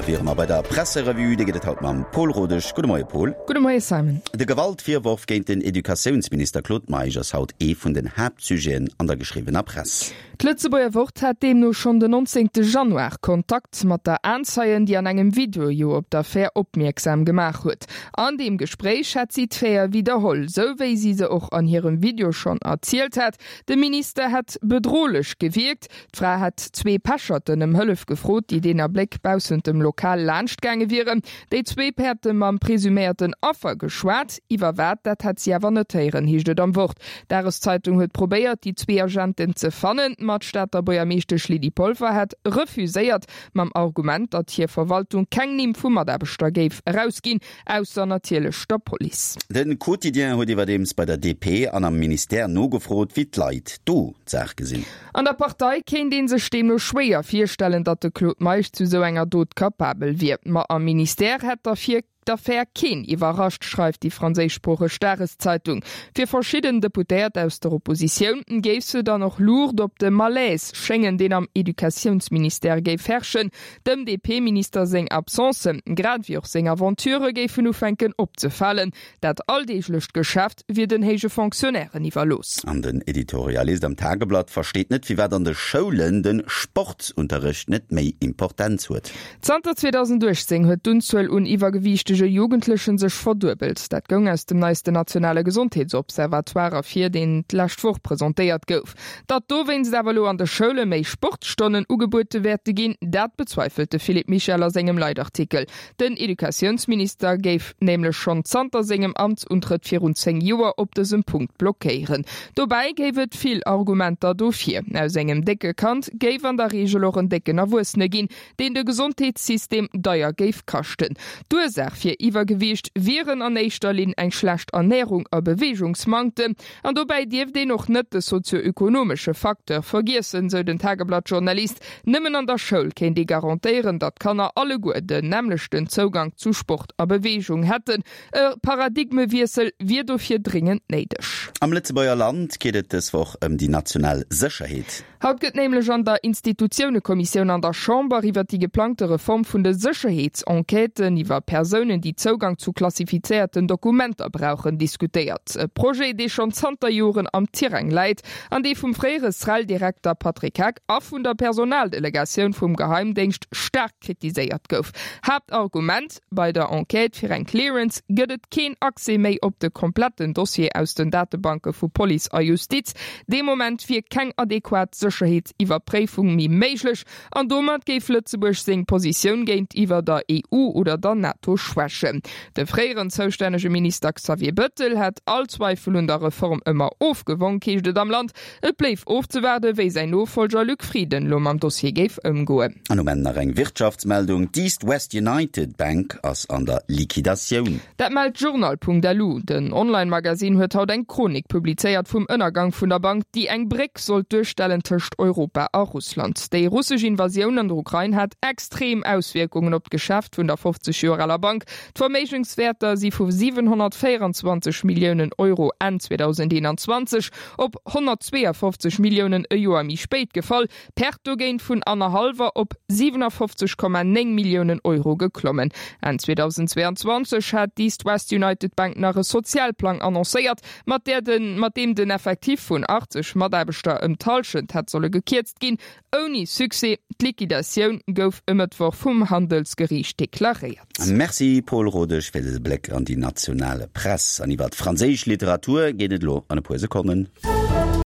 wiere mer bei der Presserevue. Déi gëtt et haut mam Pol Rodesch. Gudde Moie Pol. Gudde Moie Simon. De Gewaltvirworf géint den Educatiounsminister Claude Meisch ass haut ee vun den Haaptsujeten an der geschriwwener Press. D'Lëtzebuerger Wort hat deemno schonn den 19 Januar Kontakt mat der Aenzeien, déi an engem Video jo op d'Affär opmierksam gemaach huet. An deem Gespréich hätt si d'Faite widderholl, sou wéi si se och an hirem Video schonn erzielt hat. De Minister hätt bedrohlech gewierkt. D'Fra hätt zwee Pecherten ëm Hëllef gefrot, déi deen Abléck baussent dem Lokal laanscht gaange wieren. Déi zwee hätte mam presuméierten Affer geschwat. Iwwer wat, dat hätt si awer net héieren, heescht et am Wort. D'Dageszeitung huet probéiert, déi zwee Agenten ze fannen, ma d'Stater Buergermeeschtesch Lydie Polfer hätt refuséiert, mam Argument, datt hir Verwaltung keng Nimm vu Mataarbechter géif erausginn, ausser natierlech der Police. De Quotidien huet iwwerdeems bei der DP an am Ministère nogefrot, wéi d'Leit do d'Saach gesinn. An der Partei kéint ee sech deemno schwéier virstellen, datt de Claude Meisch zu sou enger Dot capabel wier. Ma am Ministère hätt derfir d'Affär keen iwwerrascht, schreift déi franséischsproocheg Dageszeitung. Fir verschidden Deputéiert aus der Oppositioun géif se dann och Luucht op de Malaise schéngen, deen am Educatiounsministère géif herrschen. Dem DP-Minister seng Absencen, grad ewéi och seng Aventurë géifen ufänken opzefalen. Dat alldeeglecht Geschäft wier den héije Fonctionnairen iwwerlooss. An den Editorialist am Tageblatt versteet net, firwat an de Schoulen de Sportsunterrecht net méi Importenz huet. Zanter 2018 huet d'Unzuel un iwwergewiichtege Jugendlechen sech verduebelt. Dat goung aus dem neisten nationale Gesondheetsobservatoire ervir, deen d'lescht Woch presentéiert gouf. Datt dowéinst awer elo an de Schoule méi Sportstonnen ugebuede wäerte ginn, dat bezweifelt de Philippe Michel a sengem Leitartikel. Den Educatiounsminister géif nämlech schonn zanter sengem Amtsuntrëtt virun 10 Joer op dësem Punkt blockéieren. Dobäi géif et vill Argumenter dofir. Aus engem décke Kand géif an der Reegel och en décken Erwuessene ginn, deen de Gesondheetssystem deier géif kaschten. D'Ursaach fir Iwwergewiicht wieren an éischter Linn eng schlecht Ernärung a Beweegungsmanktem. An dobäi dierft een och net de sozio-ökonomesche Facteur vergiessen, sou den Tageblatt-Journalist. Nëmmen an der Schoul kéint ee garantéieren, datt d'Kanner alleguer den nämmlechten Zougank zu Sport a Beweegung hätten. E Paradigmewiessel wier dofir dringend néideg. Am Lëtzebuerger Land geet et dës Woch ëm déi national Sécherheet. Haut gëtt nämlech an der Institutiounekommissioun an der Chamber iwwer déi geplangte Reform vun de Sécherheetsenquêten iwwer Persounen, déi Zougang zu klassifizéierten Dokumenter brauchen, diskutéiert. E Projet, dee schonn zanter Joren am Tirang läit an dee vum fréiere SREL-Direkter Patrick Heck a vun der Personaldelegatioun vum Geheimdéngscht staark kritiséiert gouf. Haaptargument, Bei der Enquête fir eng Clearance gëtt et keen Accès méi op de kompletten Dossier aus den Datebanke vu Police a Justiz. Dee Moment wier keng adequat Sécherheetsiwwerpréifung méi méiglech an domat géif Lëtzebuerg seng Positioun géintiwwer der EU oder der NATO schwächen. De fréieren zoustännege Minister Xavier Bëttel hätt all Zweifel un der Reform ëmmer ofgewonk, heescht et am Land. Et bléif ofzewaarden, wéi säin Nofollger Luc Frieden lo mam Dossier géif ëmgoen. An um Enn nach eng Wirtschaftsmeldung, D'East West United Bank ass an der Liquidatioun. Dat mellt Journal.lu. Den Online-Magasinn huet haut eng Chronik publizéiert vum Ënnergang vun der Bank, déi eng Bréck sollt duerstellen tëscht Europa a Russland. Déi russesch Invasioun an der Ukrain hat extrem Auswierkungen op d'Geschäft vun der 50 Joer aler Bank. D'Verméigenswäerter si vu 724 Milliounen Euro Enn 2021 op 152 Milliounen e Joer méi spéit gefall, d'Perte dogéint vun annerhallwer op 57,9 Milliounen Euro geklommen. Enn 2022 hat d'East West United Bank nach e Sozialplang annoncéiert, mat där den mat deem den Effectif vun 80 Mataarbechter ëm d'Hallschent hätt solle gekierzt ginn. Ouni Succès, d'Liquidatioun gouf e Mëttwoch vum Handelsgeriicht deklaréiert. Merci Paul Rodesch fir dëse Bléck an déi national Press. An iwwer d'franséisch Literatur geet et elo an e puer Sekonnen.